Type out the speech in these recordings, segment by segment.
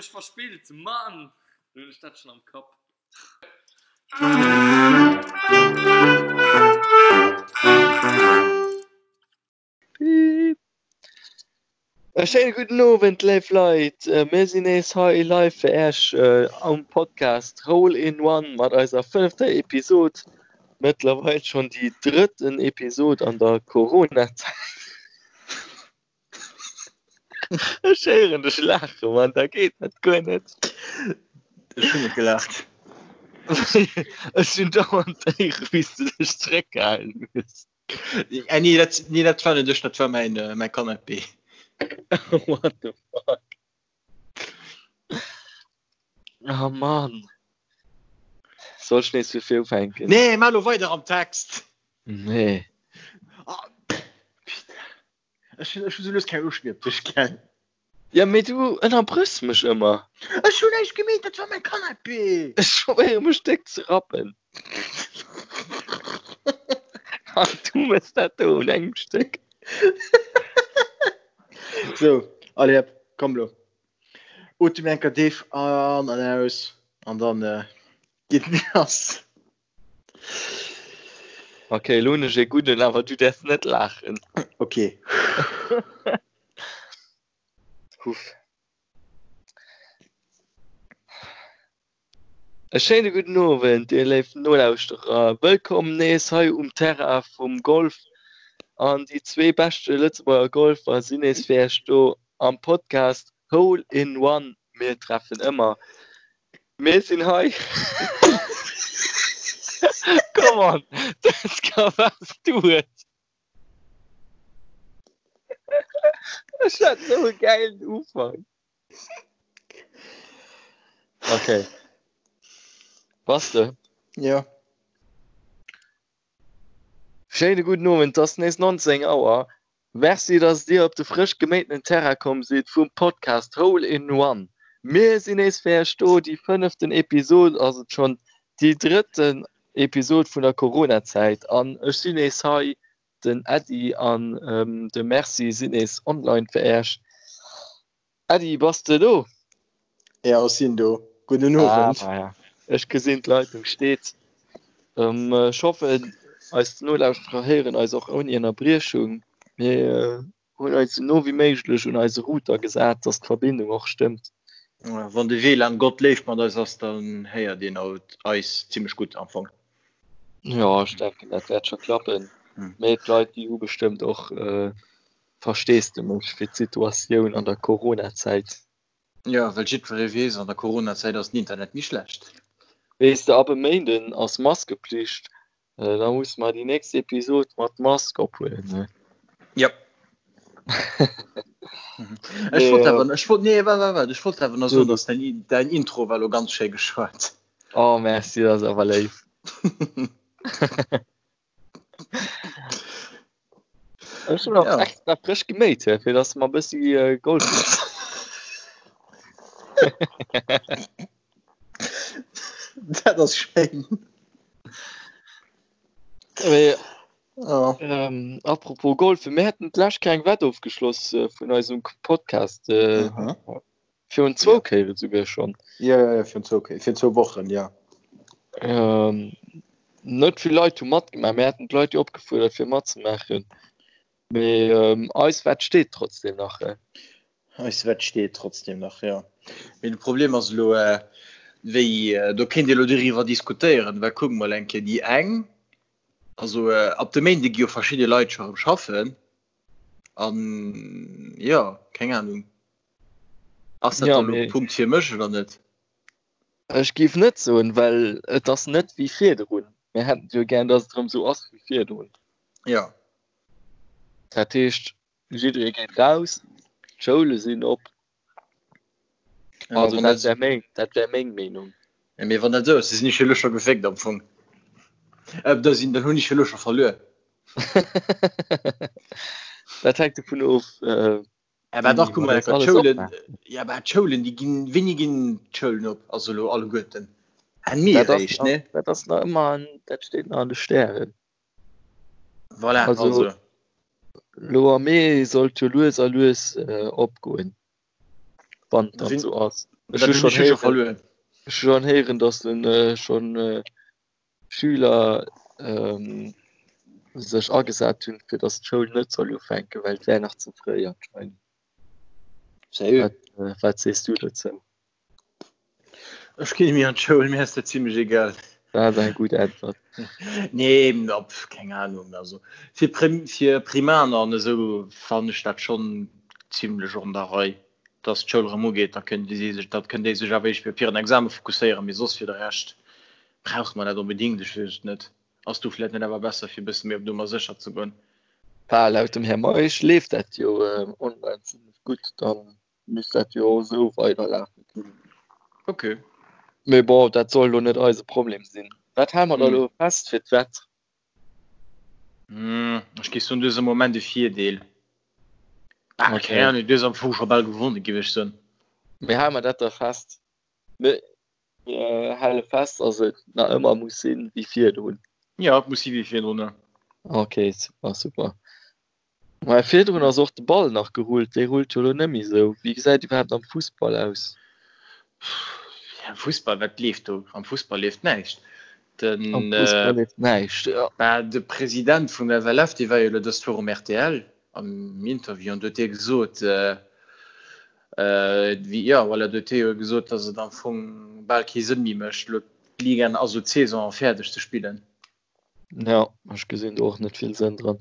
mech verspillt, Mann! Lo hunn ech dat schonn am Kapp. E schéine gudden Owend, léif Leit. Mir sinn nees hei live fir Äech am Podcast Hole in One mat eiser fënnefter Episod. Mëttlerweil schonn déi drëtten Episod an der Corona-Zäit. Ech héieren dech laachen, Mann, da geet dat guer net. Ech hunn net gelaacht. Ech hunn dauernd héieren, wéi s du dech zeréckgehalen hues. Äh, nee, dat, nee, dat war net ech, dat war mäin, äh, mäi Canapé. What the fuck? Oh Mann. Soll ech nees vu vir ufänken? Nee, maach lo weider am Text. Nee. Ah, Ech hunn ech hunn sou lues keng Loscht méi op dech, gell? Ja, mee du ënnerbrëchs mech ëmmer. Ech hunn näischt gemeet, dat war mäi Canapé! Ech probéiere mech déck ze rappen. An du mëss dat do un engem Stéck. Sou, allez hop, komm lo. Otem eng Kéier déif an an aus an dann geet et lass. Ok, elo hunn ech ee gudden, awer du däerfs net laachen. Ok. Huff. E schéine gudden Owend, dir léif Nolauschterer. Wëllkomm nees hei um Terrain vum Golf. An déi zwee beschte Lëtzebuerger Golfer sinn nees fir Iech do am Podcast Hole in One. Mir treffen ëmmer. Mir sinn hei. Come on, dat ka was du huet. Ech hat sou e gäilen Ufank. Okay. Bass de? Ja. Schéine gudden Owend, 't ass nees 19 Auer. Merci dass dir op de frësch geméitenen Terrain komm sidd vum Podcast Hole in One. Mir sinn nees fir iech do, déi fënneften Episod ass et schonn, déi drëtten Episod vun der Corona-Zäit an ech sinn nees hei, den Äddi an de Merci sinn nees online fir iech. Äddi, bass de do? Jo, ech sinn do. Gudden Owend. Ah, ja. Ech gesinn d'Leitung steet. Ähm, ech hoffen, eis Nolauschterer héieren eis och ouni Ënnerbriechung. Mir äh, hunn eis esou no wéi méiglech un eise Router gesat, dass d'Verbindung och stëmmt. Wann de WLAN Gott léif mat eis ass, dann héiert een haut eis zimmlech gutt am Fong. Ja, ech denken, dat wäert scho klappen. Mee d'Leit, déi hu bestëmmt och äh, Versteesdemech fir d'Situatioun an der Coronazäit. Jo, well jiddweree weess, an der Coronazäit ass den Internet méi schlecht. Weess de, ab e Méinden ass Maskepflicht, da musse mer déi nächst Episod mat Mask ophuelen, ne? Jop. Ech wollt awer, ech wollt, nee, waart, waart, waart, ech wollt awer nach soen, dass däin, däin Intro war lo ganz schéi geschwat. Oh, merci, dat ass awer léif. Ech hunn och ja. extra frësch geméit, fir dass mer bëssi äh, Golf. Dat ass schéin. Mee, oh. ähm, apropos Golf, mir hätten d'lescht keng Wett ofgeschloss äh, vun eisem Podcast. Äh, mhm. Virun zwou Kéiere souguer schonn. Jo, jo, jo, virun zwou Kéier, virun zwou Wochen, jo. Ähm, net vill Leit hu matgemaach. Mir haten d'Leit jo opgefuerdert, fir matzemaachen. Mee ähm, eis Wett steet trotzdem nach. Äh. Eis Wett steet trotzdem nach, jo. Mee de Problem ass elo, äh, wéi, äh, do kéint ee elo doriwwer diskutéieren, well kuck mol eng Kéier, déi eng, also äh, ab de Méinde gi jo verschidde Leit scho erëm schaffen an, jo, keng Ahnung. Ass dat dann elo e Punkt fir mech oder net? Ech géif net soen, well et ass net wéi virdrun. Mir hätten et jo gär, datt et erëm esou ass wéi virdrun. Jo. Dat heescht, jidderee geet raus, d'Schoule sinn op. Also dat wär meng, dat wär meng Meenung. Ja, mee wann dat esou ass, da sinn ech jo elo scho geféckt am Fong. Äh, da sinn, dann hunn ech jo elo scho verluer. Dat hänkt dovun of, äh, Ja, bah, dach, guck mal, d'Schoulen, ja, bah, d'Schoulen, déi ginn, wéini ginn d'Schoulen op? Also elo alleguerten. Enn Mee eréischt, ne? Dat ass nach ëmmer an, dat steet nach an de Stären. Voilà, also. also. Lo am Mee sollt jo lues a lues äh, opgoen. Wann dat sou ass. Ech hu schonn héieren, ech hu schonn héieren, datt en schonn Schüler sech agesat hunn, fir datt d'Schoul net soll ufänken, well et wär nach ze fréi anscheinend. Sérieux? Wat, wat sees du dozou? Ech ginn méi an d'Schoul, mir ass dat zimmlech egal. Dat ass eng gutt Äntwert. Nee, op, keng Ahnung. Also fir Prim, fir Primaner an esou fannen ech dat schonn zimmlech an der Rei, dass d'Schoul erëm ugeet. Da kënnen déi sech, da kënnen déi sech awer éischt op hiren Exame fokusséieren, mee soss fir de Rescht brauche mer dat onbedéngt? Ech weess et net. Ass do vläicht net awer besser fir e bësse méi op Nummer sécher ze goen? Bah, laut dem Här Meisch leeft dat jo online zimlech gutt, dann misst dat jo och esou weiderlafe kënnen. Ok. Mee bon, dat soll elo net eise Problem sinn. Wat hale mer da elo fest fir d'Wett? Ech géif soen, du hues am Moment e Virdeel. Ah, Ok. keng Ahnung, du hues am Fong scho bal gewonnen, géif ech soen. Mee hale mer dat da fest? Mir hale fest, dass et nach ëmmer muss sinn wéi virdrun. Jo, et muss si wéi virdrun, jo. Ok, super, super. Mä virdrun ass och de Ball nach gerullt, dee rullt jo elo net méi esou. Wéi gesäit iwwerhaapt am Fussball aus? Am Fussball, wat leeft do? Am Fussball leeft näischt. Den, Am Fussball leeft näischt, jo. Bah, de President vum FLF, dee war jo elo dëst Woch um rtl am Interview an do huet dee gesot, wéi, jo, voilà, do huet dee jo gesot, datt et am Fong bal kee Sënn méi mécht, elo d'Ligaen, also d'Saison fäerdeg ze spillen. Ja, ech gesinn do och net vill Sënn dran.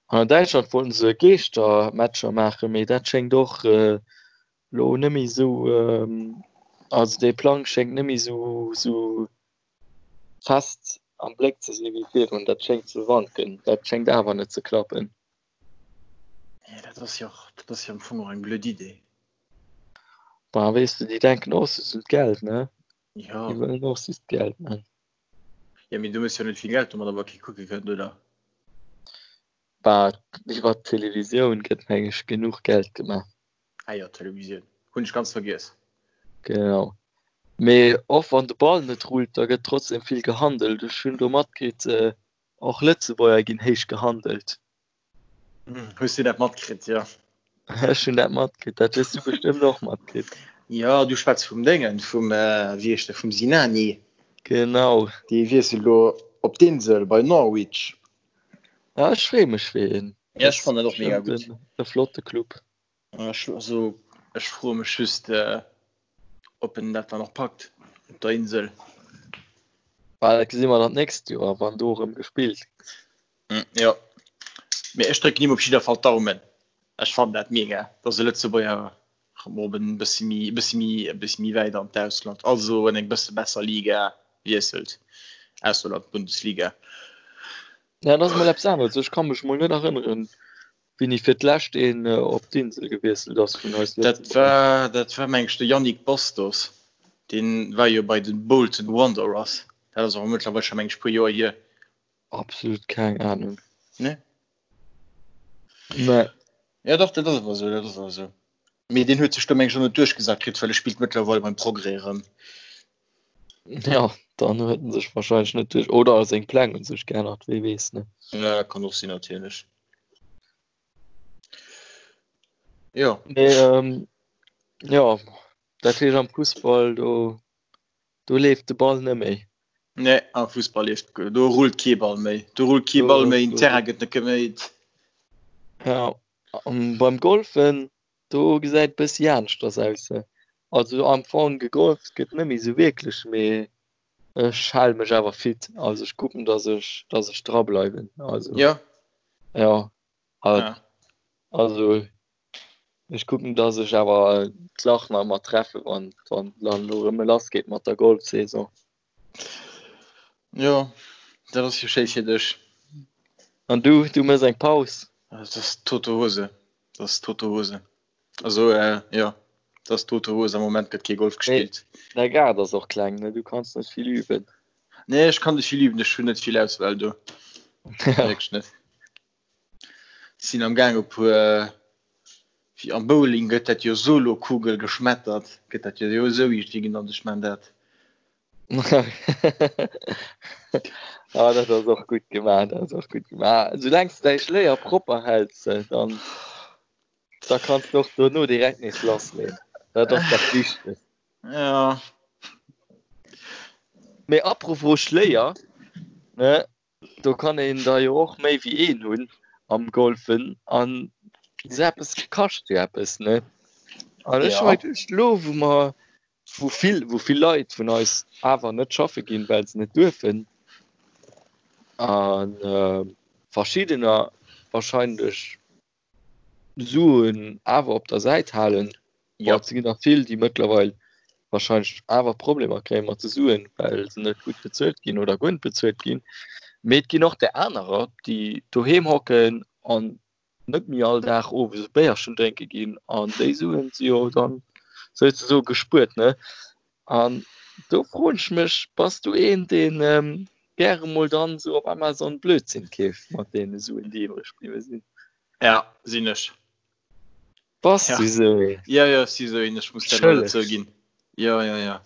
An an Däitschland wollten se Geeschtermatcher maachen, mee dat schéngt och lo net méi esou, also dee Plang schéngt net méi esou esou fest am Bléck ze sinn wéi virdrun. Dat schéngt ze wanken, dat schéngt awer net ze klappen. Nee, dat ass jo och, dat ass jo am Fong och eng blöd Idee. Bah, weess de, déi denken och just un d'Geld, ne? Ja. Déi wëllen och just Geld man. Ja, mee du méchs jo net vill Geld domat, awer kee kucke kënnt, oder? Bah, iwwer d'Televisioun gëtt meng ech genuch Geld gemaach. Ah jo, d'Televisioun. Hunn ech ganz vergiess. Genau. Mee och wann de Ball net rullt, da gëtt trotzdem vill gehandelt. Ech hunn do matkritt, och Lëtzebuerger ginn héich gehandelt. Hues du dat matkritt, jo? Ech hunn dat matkritt, dat hues du bestëmmt och matkritt. Jo, du schwätz vum Déngen, vum, wéi heescht e, vum Sinani. Genau. Dee wiesselt elo op d'Insel bei Norwich. Ja, ech freeë mech fir hien. Ja, ech fannen dat och mega gutt. E flotte Club. Ech, also, ech froe mech just, ob en dat dann och packt op der Insel. Bah, dat gesi mer dann d'nächst Joer, wann do erëm gespillt gëtt. Jo, mee ech drécken him op jidder Fall d'Daumen. Ech fannen dat mega, dass e Lëtzebuerger erëm op en bësse méi, e bësse méi, e bësse méi wäit an d'Ausland, also an eng bësse besser Liga wiesselt, ausser an d'Bundesliga. Ja, dat ass mol eppes aneres. Ech ka mech mol net erënneren, wéini fir d'lescht een op d'Insel gewiesselt ass vun eis Dat war, dat war meng ech de Yannick Bastos. Deen war jo bei den Bolton Wanderers. Dat ass awer mëttlerweil scho meng ech puer Joer hier. Absolut keng Ahnung. Nee? Nee. Ja dach, dat ass awer esou, dat ass awer esou. Mee deen huet sech do meng ech och net duerchgesat kritt, well e spillt mëttlerweil beim Progrès erëm. Ja, dann huet en sech wahrscheinlech net duerch oder seng Pläng hunn sech geännert, wee weess, ne? Ja, kann och sinn natierlech. Jo. Mee ähm, jo, dat heescht am Fussball do do leeft de Ball net méi. Nee, am Fussball leeft do rullt kee Ball méi. Do rullt kee Ball méi, den Terrain gëtt net geméit. Ja, an beim Golfen Do gesäit bëssi aneschters aus. Also am Fong gegolft gëtt net méi sou wierklech, mee ech hale mech awer fit. Also ech kucken, dass ech, dass ech dra bleiwen. Also ja, ja, ja. Also ech kucken, dass ech awer d'Lach nach ëmmer treffe wann wann dann elo erëm lass geet mat der Golfsaison. Jo, dat ass jo schéi fir dech. An du, du mëss eng Paus? Dat ass tote Hose. Dat ass tote Hose. Also äh, jo, dat ass tote Hose. Am Moment gëtt kee Golf gespillt. Däi Gaart ass och kleng, ne? Du kanns net vill üben. Nee, ech kann net vill üben. Ech hunn net vill Auswahl do. Wierklech net. Sinn am Gaang e puer, wéi am Bowling gëtt dat jo Solokugel geschmettert, gëtt dat jo esou iergendwéi genannt, ech man dat. Ah, dat ass och gutt gemaach, dat ass och gutt gemaach. Soulaang s de däi Schléier propper häls, dann da kanns de och dono direkt nees lassleeën. Dat ass dat Wichtegst. Ja. Mee apropos Schléier, ne, do kann een der jo och méi wéi een hunn am Golfen an esou eppes kascht jo eppes, ne? An ech hu mer geduecht, elo wou mer, wou vill, wou vill Leit vun eis awer net schaffe ginn, well se net duerfen, a verschiddener wahrscheinlech Suen awer op der Säit halen. Ja. Et ginn nach vill, déi mëttlerweil wahrscheinlech awer Problemer kréie mat de Suen, well se net gutt bezuelt ginn oder guer net bezuelt ginn. Mee et ginn och där anerer, déi doheem hocken an net méi all Dag owes e Béierchen drénke ginn an déi Suen si jo dann souzesoe gespuert, ne? An do froen ech mech, bass du een, deen gäre mol dann esou op Amazon Blödsinn keeft mat deene Suen, déi iwwreg bliwwe sinn? Ja, sinn ech. Bass du esou een? Ja, ja, ech si esou een, ech muss dat leider zouginn. Ja, ja, ja.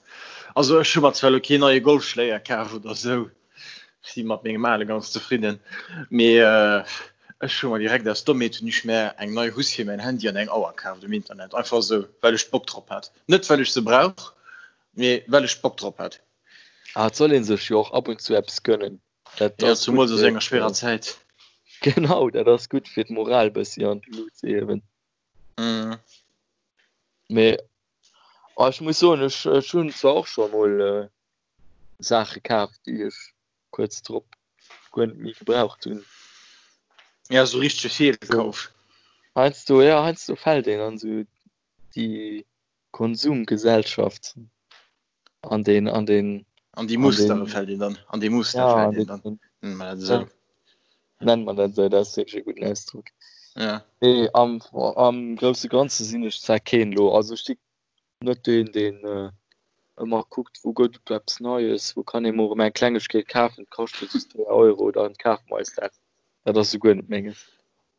Also ech hu mer zwar elo keen neie Golfschléier kaf oder esou, ech si mat mengem ale ganz zefridden, mee ech hu mer direkt aus Dommheet hunn ech mär eng nei Housse fir mäin Handy an eng Auer kaaft um Internet, einfach esou, well ech Bock drop hat. Net well ech se brauch, mee well ech Bock drop hat. Ah, et soll ee sech jo och ab und zu eppes gönnen. Dat ja, zumools a sou enger schwerer Zäit. Genau, dat ass gutt fir d'Moral bëssi an d'Lut ze hiewen. Mm. Mee oh, ech muss soen, ech, ech hunn zwar och scho mol äh, Saache kaf, déi ech kuerz drop guer net méi gebraucht hunn. Ja, sou richtege Feelkauf. Heiansdo, ja, heiansdo fält een an sou déi Konsumgesellschaft an den an den an déi Mustere fält een dann an déi Muster ja, fält een dann nennt man dat esou nennt man dat esou dat ass wierklech e gudden Ausdrock ja nee am am grousse Ganze sinn ech zwar keen elo also ech si net deen deen äh, ëmmer kuckt wou gëtt et eppes Neies wou kann ee mol erëm eng Klengegkeet kafen kascht just 3 Euro dann kafe mer eis dat dat ass esouguer net menges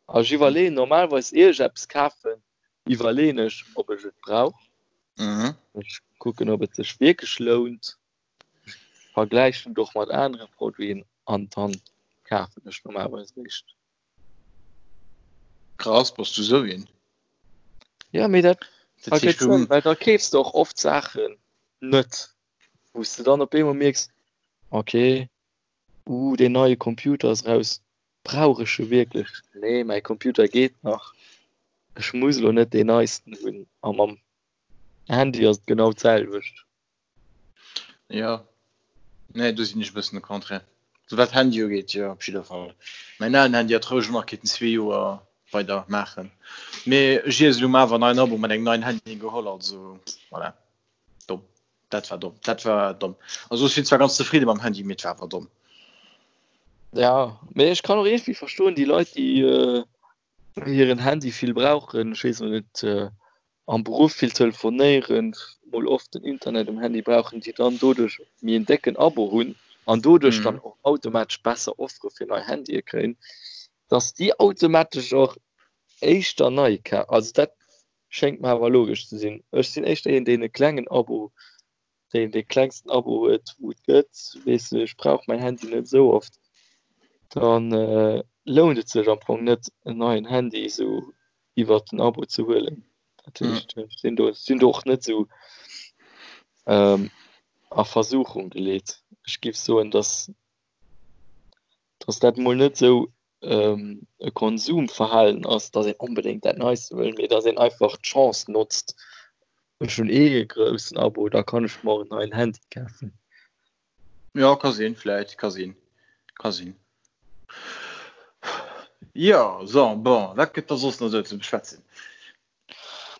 a ech iwwerleeën normalerweis ier ech eppes kafen iwwerleeën ech, ob ech et brauch. Mhm. Ech kucken, ob et sech wierklech lount. Ech vergläichen et och mat anere Produiten an dann kafen ech normalerweis eréischt. Krass, bass du sou een? Ja, mee dat Dat heescht, ergëtt du. Sënn, well da keefs de och oft Saachen net, wou s de dann op eemol mierks, okay, Uh, deen neie Computer ass raus. Brauch ech e wierklech? Nee, mäi Computer geet nach. Ech muss elo net deen neisten hunn. A mam Handy ass et genau d'selwecht. Jo, nee, do sinn ech e bëssen de Contraire. Sou wat Handy ugeet, jo, op jidder Fall. Mäin alen Handy hat roueg nach kéinten zwee Joer weider maachen. Mee ech iess elo awer en neien Abo mat engem neien Handy geholl, also voilà. Domm. Dat war domm. Dat war domm. Also ech sinn zwar ganz zefridde mam Handy, mee et war awer domm. Ja, mee ech kann och iergendwéi verstoen, déi Leit, déi äh, hiren Handy vill brauchen, ech weess elo net, äh, am Beruff vill telefonéieren, mol oft den Internet um Handy brauchen, déi dann doduerch méi en décken Abo hunn an doduerch dann Mhm. och automatesch besser Offere fir nei Handye kréien, dass déi automatesch och éischter nei ka-, also dat Schéngt mer awer logesch ze sinn. Ech sinn éischter een deen e klengen Abo, deen dee klengsten Abo huet wou et gëtt. Weess de, ech brauch mäin Handy net esou oft. Dann lount et sech am Fong net en neien Handy esou iwwert den Abo ze huelen. Dat heescht ech sinn do sinn do och net esou a Versuchung geleet. Ech giff soen, dass dass dat mol net esou e Konsumverhalen ass, dass een onbedéngt dat Neiste wëll, mee dass een einfach d'Chance notzt, ech hunn eh e groussen Abo, da kann ech mer och en neien Handy kafen. Jo, ka sinn, vläit, ka sinn, ka sinn. Jo, so, bon, wat gëtt da soss nach esou ze beschwätzen?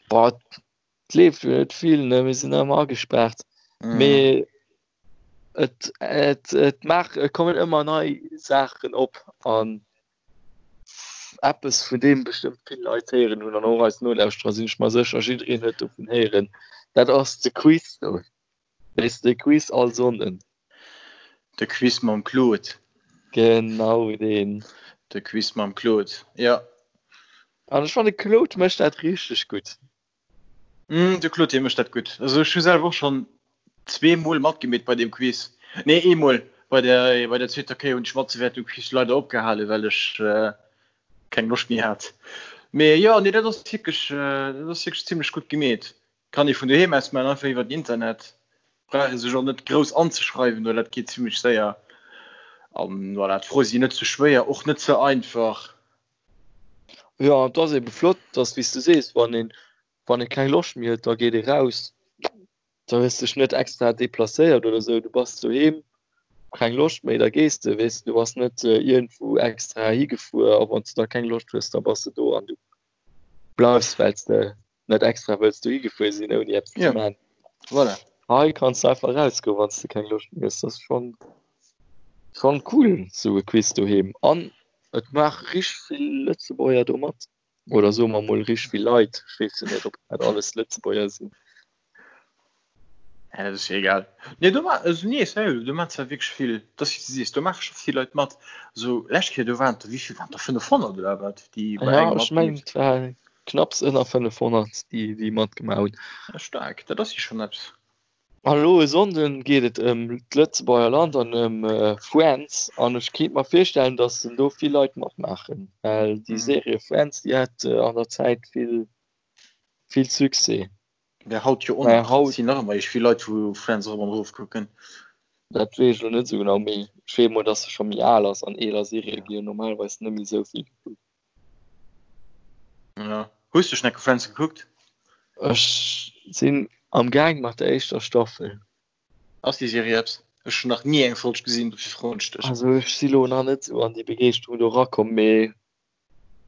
Boah, et leeft jo net vill, ne, mir sinn ëmmer agespaart, mee Et, et, et maach, et kommen ëmmer nei Saachen op an eppes vun deem bestëmmt vill Leit héieren hunn an och eis Nolauschterer sinn ech mer sécher, jiddereen huet dovun héieren, dat ass de Quiz do. Weess de, de Quiz all Sonnden. De Quiz mam Claude. Genau deen. De Quiz mam Claude, jo. An ech fannen, de Claude mécht dat richteg gutt. Mm, de Claude, dee mécht dat gutt. Also ech hu selwer och schonn zweemol matgemeet bei deem Quiz. Nee, eemol. Bei der, bei der zweeter Kéier hunn ech matzewäerten um Quiz leider opgehalen, well ech keng Loscht méi hat. Mee jo, nee, dat ass wierklech, dat ass wierklech zimlech gutt gemeet. Kann ee vun doheem aus maachen, einfach iwwer den Internet. Brauch ee sech och net grouss anzeschreiwen oder dat geet zimmlech séier. An voilà, d'Froe sinn net ze schwéier, och net ze einfach. Jo, et ass ebe flott, dass, wéi s du sees, wann een, wann ee keng Loscht méi huet, da geet ee raus. Da hues dech net extra deplacéiert oder sou, du bass doheem, keng Loscht méi, da gees de, weess de. Du bass net iergendwou extra higefuer a wann s du da keng Loscht hues, da bass de do an du bleifs, well s de net extra wëlls dohi gefuer sinn ouni eppes ze Ja, man. voilà. Hei kanns du einfach rausgoen, wann s de keng Loscht méi hues. Dat ass schonn, schonn cool, sou e Quiz doheem. An et maache richteg vill Lëtzebuerger do mat. Oder soe mer mol richteg vill Leit. Ech weess jo net, ob dat alles Lëtzebuerger sinn. Ja, dat ass jo egal. Nee, do ma also nee, sérieux, do maachen zwar wierklech vill, dat ass wéi s du sees, do maache scho vill Leit mat. Also lescht Kéier, do waren der, wéi vill waren der, 500 oder wat, déi bei Ja, engem ech mengen matgemeet et war knapps ënner 500, déi, déi matgemaach hunn. Ja, staark, dat ass jo schonn eppes. An elo e Sonnden geet et ëm d'Lëtzebuerger Land an ëm Friends an ech kéint mer virstellen, datt en do vill Leit matmaachen, well déi Serie Friends, déi hat an der Zäit vill, vill Succès. Mä haut jo och Mä nach. haut. Sinn nach ëmmer eescht vill Leit wou Friends erop an erof kucken. Dat weess ech elo net esou genau, mee ech weess emol, dass se scho méi al ass an eeler Serië Ja. gi jo normalerweis net méi esou vill gekuckt. Ja. Hues du schonn enke Friends gekuckt? Ech sinn am Gaang mat der éischter Staffel. Ass déi Serie eppes? Ech hunn nach ni eng Folg gesinn, dofir froen ech dech. Also ech si lo nach net esou an déi Begeeschterung do erakomm, mee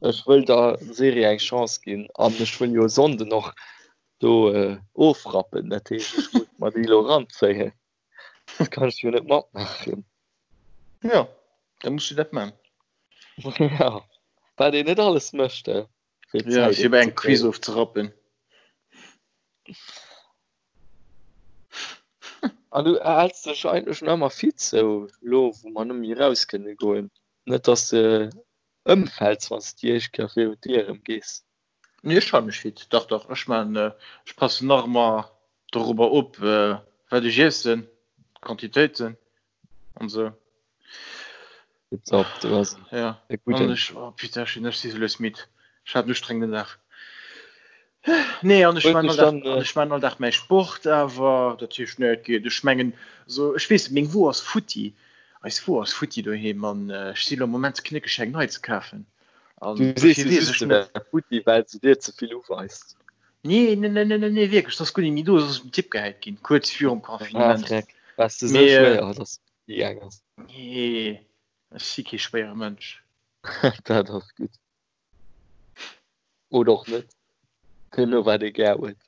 Ech wëll der Serie eng Chance ginn an ech wëll jo e Sonnden och do ofrappen. Dat heescht, ech muss mer déi elo eranzéien. Dat kann ech jo net matmaachen. Jo, da muss du dat man. Ja, wat een net alles mécht, he, fir Ja, d'Zäit fir bei engem Quiz ofzekréien. ofzerappen. An du häls dech eigentlech nach ëmmer fit, sou elo wou mer net méi eraus kënne goen? Net dass de Ëmfäls wann s de déi éischt Kéier virun d'Dier erëm gees. Nee, ech hale mech fit. Dach, dach, ech man, ech passen nach ëmmer dorobber op, wat ech iessen, d'Quantitéiten an esou. Tipptopp, du bass Ja, e an gudden. ech, oh putain, ech sinn, ech si sou lues midd. Ech hat en ustrengenden Dag. Nee, an ech Huet man dech all Dag, dann, an ech man all Dag mäi Sport awer, dat heescht, nee, et geet. Ech mengen, so, ech weess net, meng Wo ass futti. Eis Wo ass futti doheem an ech si lo am Moment ze knéckeg eng nei ze kafen. An du sees dofir jo weess just ech se net. wär futti, well se dir ze vill uweist. Nee, nee, nee, nee, nee, nee, wierklech, dat ass guer net méi do, se ass op den Tipp gehäit ginn, kuerz virum Ah, Confinement. Dreck, waars de sou Mee, schwéier, dass se futti gaang ass? nee, ech si kee schwéiere Mënsch. Dat ass gutt. Oder och net. Deemno wat ee gär huet.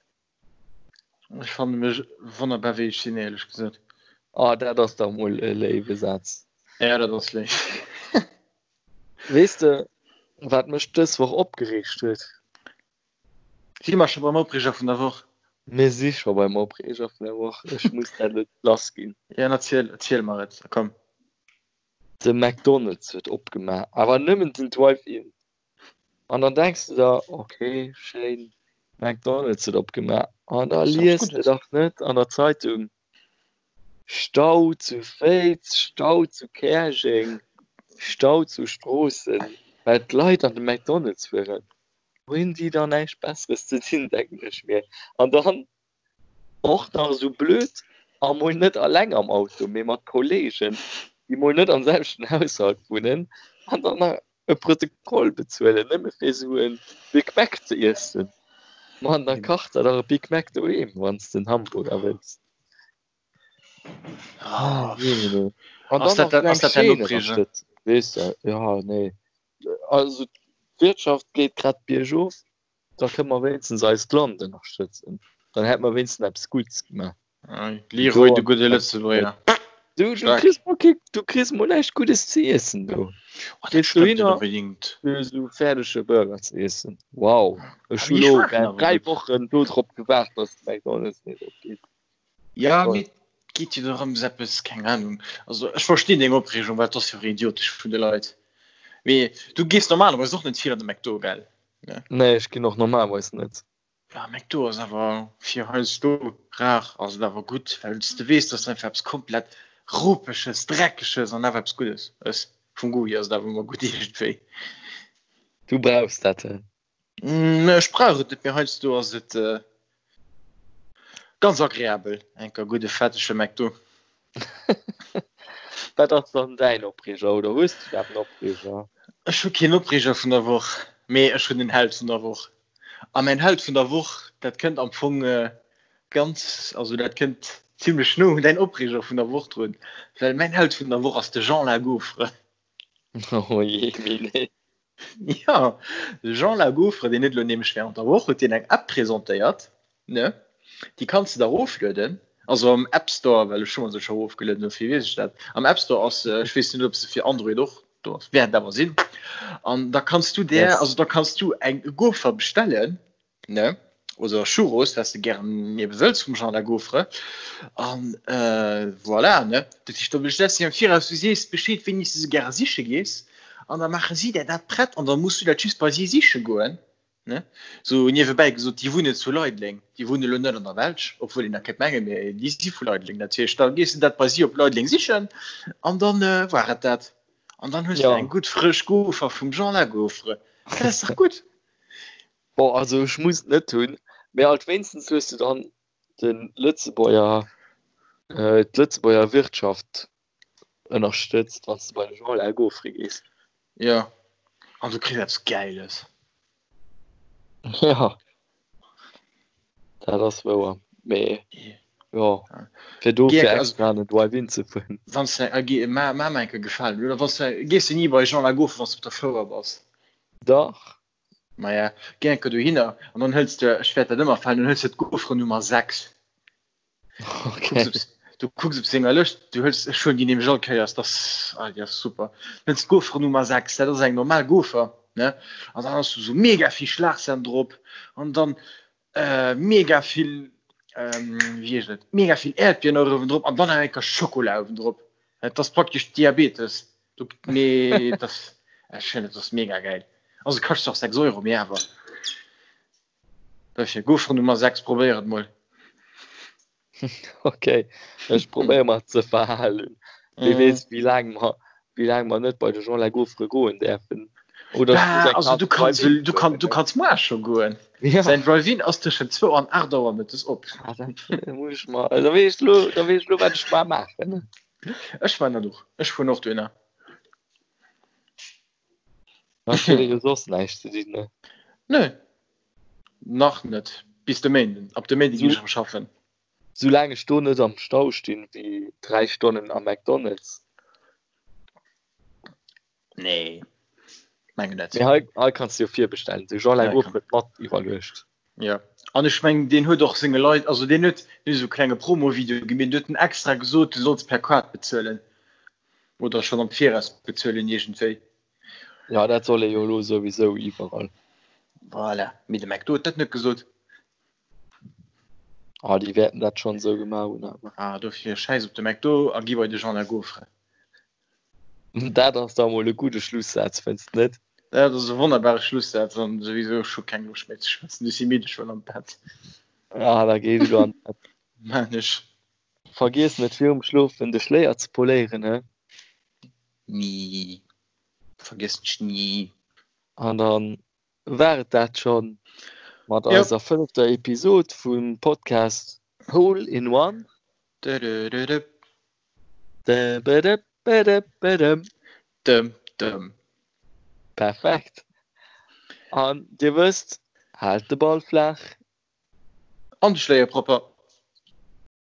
Ech fanne mech wonnerbar wéi ech sinn, éierlech gesot. Ah, dat ass dach mol e léiwe Saz. Ja, dat ass léif. Weess de, wat mech dës Woch opgereegt huet? Si mer scho beim Opreeger vun der Woch? Mir si scho beim Opreeger vun der Woch. Ech muss dat elo lass ginn. Ja, erziel, erziel mer et, komm. De McDonald's huet opgemaach, awer nëmmen den Drive-In. An dann denks de der, ok, schéin, McDonald's huet opgemaach. An da lies de dach net an der Zeitung, Stau zu Féiz, Stau zu Käerjeng, Stau zu Stroossen, well d'Leit an de McDonald's fueren. Hunn déi da näischt Besseres ze dinn, denken ech mir. An dann Och nach esou blöd, a mol net alleng am Auto, mee mat Kollegen, déi mol net am selwechten Haushalt wunnen, an dann nach e Protokoll bezuelen, nëmme fir esou e Big Mac ze iessen. Mann, da kach der dach e Big Mac doheem, wann s de en Hamburger wëlls. Ah, jee, nee. An Ass dann dat nach dat, esou ass eng dat däin Chaîne Opreeger? ënnerstëtzen, weess de. Jo, nee. Also, d'Wirtschaft geet grad biergof. Da kënne mer wéinstens eist Land ënnerstëtzen. Dann hätte mer wéinstens eppes Gutts gemaach. Leroy, de gudde Lëtzebuerger. Du, du kriss mol kee, du kriss mol näischt Guddes ze iessen do. Oh, dat stëmmt net onbedingt. Fir esou fäerdege Burger ze iessen. Wow. Ech hu lo 3 Wochen do drop gewaart, dass de McDonald's nees opgeet. Ja, mee et geet jo dorëms eppes, keng Ahnung. Also ech verstinn deng Opreegung, well et ass jo och idiotesch vun de Leit. Mee du gees normalerweis och net vill an de McDo, gell? Ne? Nee, ech ginn och normalerweis net. Ja, McDo ass awer fir heiansdo rar ass et awer gutt, well s de weess, dass einfach eppes komplett Ropeges, Dreckeges an awer eppes Guddes ëss. Vum Goût hier ass et awer ëmmer gutt iergendwéi. Du brauchs dat, he? Ech brauch et net, mee heiansdo ass et. Ganz agreabel, enker gudde fettege McDo. Wat ass dann däin Opreeger oder hues du iwwerhaapt en Opreeger? Ech hu keen Opreeger vun der Woch, mee ech hunn en Held vun der Woch. A mäin Held vun der Woch, dat kënnt am Fong ganz, also dat kënnt zimlech no un däin Opreeger vun der Woch drun, well mäin Held vun der Woch ass de Jean Lagaufre. Oh jee, mee nee. Jo, de Jean Lagaufre, deen huet elo nämlech während der Woch huet deen eng App presentéiert, ne? Déi kanns de der eroflueden, also am App Store, well ech hu mer se scho erofgelueden, dofir weess ech dat. Am App Store ass se, ech weess net, ob se fir Android och do ass, wäert awer sinn. An da kanns du där, Yes. also da kanns du eng Gaufre bestellen, ne? Oder Churros, wat s de gären ebe wëlls vum Jean Lagaufre. An voilà, ne? Dat heescht, da bestells de am Viraus, du sees Bescheed, wéini s de se gäre siche gees, an da maache si där dat prett an da muss du dat just bei si siche goen, ne? Sou niewebäi gesot, déi wunnen zu Leideleng, déi wunne lo net an der Belsch, obwuel een dat kéint mengen, mee déi si vu Leideleng. Dat heescht, da gees de dat bei si op Leideleng sichen an dann war et dat. An dann hues de eng gutt frësch Gaufre vum Jean Lagaufre. Dat ass dach gutt! Bon, also ech muss et net hunn, mee alt wéinstens hues du dann de Lëtzebuerger, d'Lëtzebuerger Wirtschaft ënnerstëtzt, wann s de bei de Jean Lagaufre gees. Jo, an du kriss eppes Gäiles. Jo, dat ass wouer, mee jo, fir dofir extra an den Drive-In ze fueren. Wann s de, ma mer eng Kéier gefalen, oder wann s de, gees de ni bei Jean Lagaufre, wann s de op der Fouer bass? Dach. Maja, géi enker dohinner an dann hëls de, ech wäert dat ëmmer falen, dann hëls de d'Gaufre Nummer 6. Okay. Du kucks op senger Lëscht, du hëls, ech huelen déi nämlech all Kéiers, dat ass, ah, déi ass super. Hëls d'Gaufre Nummer 6, dat ass eng normal Gaufre, ne? An dann ass do sou mega vill Schlagsan drop an dann äh, mega vill, ähm, wéi heescht et, mega vill Äerdbieren och uewen drop an dann nach eng Kéier Schokola uewen drop. Dat ass praktesch Diabetes. Du, mee das, ech fannen, dat ass mega gäil. Also kascht se och 6 Euro, mee awer. Dofir, Gaufre Nummer 6, probéier et mol. Okay, ech probéiere mer ze verhalen. Wie weess, wéi laang mer, wéi laang mer net bei de Jean Lagaufre goen däerfen. Oder ech muss Bah, eng also Kaz du kanns, Drive-In du kann, du fueren. kanns muar scho goen. Ja. Säin Drive-In ass tëschent zwou an 8 Auer mëttes op. Ah, dat muss ech mer, da weess ech lo, da weess ech lo, wat ech mar maachen. Ech man dat och. Ech fueren och dohinner. Ech huet jo soss näischt ze dinn, ne? Nö. Nach net. Bis de Méinden. Ab de Méinde ginn ech erëm schaffen. Soulaang ech do net am Stau stinn wéi 3 Stonnen am McDonald's. Nee, mengen net. Mee hei, hei kanns de jo virbestellen. De Jean Lagofre huet mat iwwerluecht. Ja, an ech mengen, deen huet och senge Leit, also deen huet deen huet esou e klenge Promo-Video gemaach, deen huet en extra gesot, du solls per Kaart bezuelen oder schonn am Viraus bezuelen iergendwéi. Ja, dat soll ee jo elo souwisou iwwerall. Voilà, mee de McDo huet dat net gesot. Ah, déi wäerten dat schonn esou gemaach hunn awer. Ah, dofir schäiss op de McDo a gi bei de Jean Lagofre. Dat ass da mol e gudde Schlussaz, fënns de net? Dat ass e wonnerbare Schlussaz an souwisou, ech hu keng Loscht méi ze schwätzen, ech si midd, ech wëll an d'Bett. Ah, da géi elo an d'Bett. Maan ech. Vergiess net virum Schlofen de Schléier ze poléieren, he? Ni. Vergiessen ech ni. An dann war et dat schonn mat eiser fënnefter Episod vum Podcast Hole in One. Dödödödö. Dëm, dëm. Perfekt. An Dir wësst, haalt de Ball flaach. An de Schléier propper.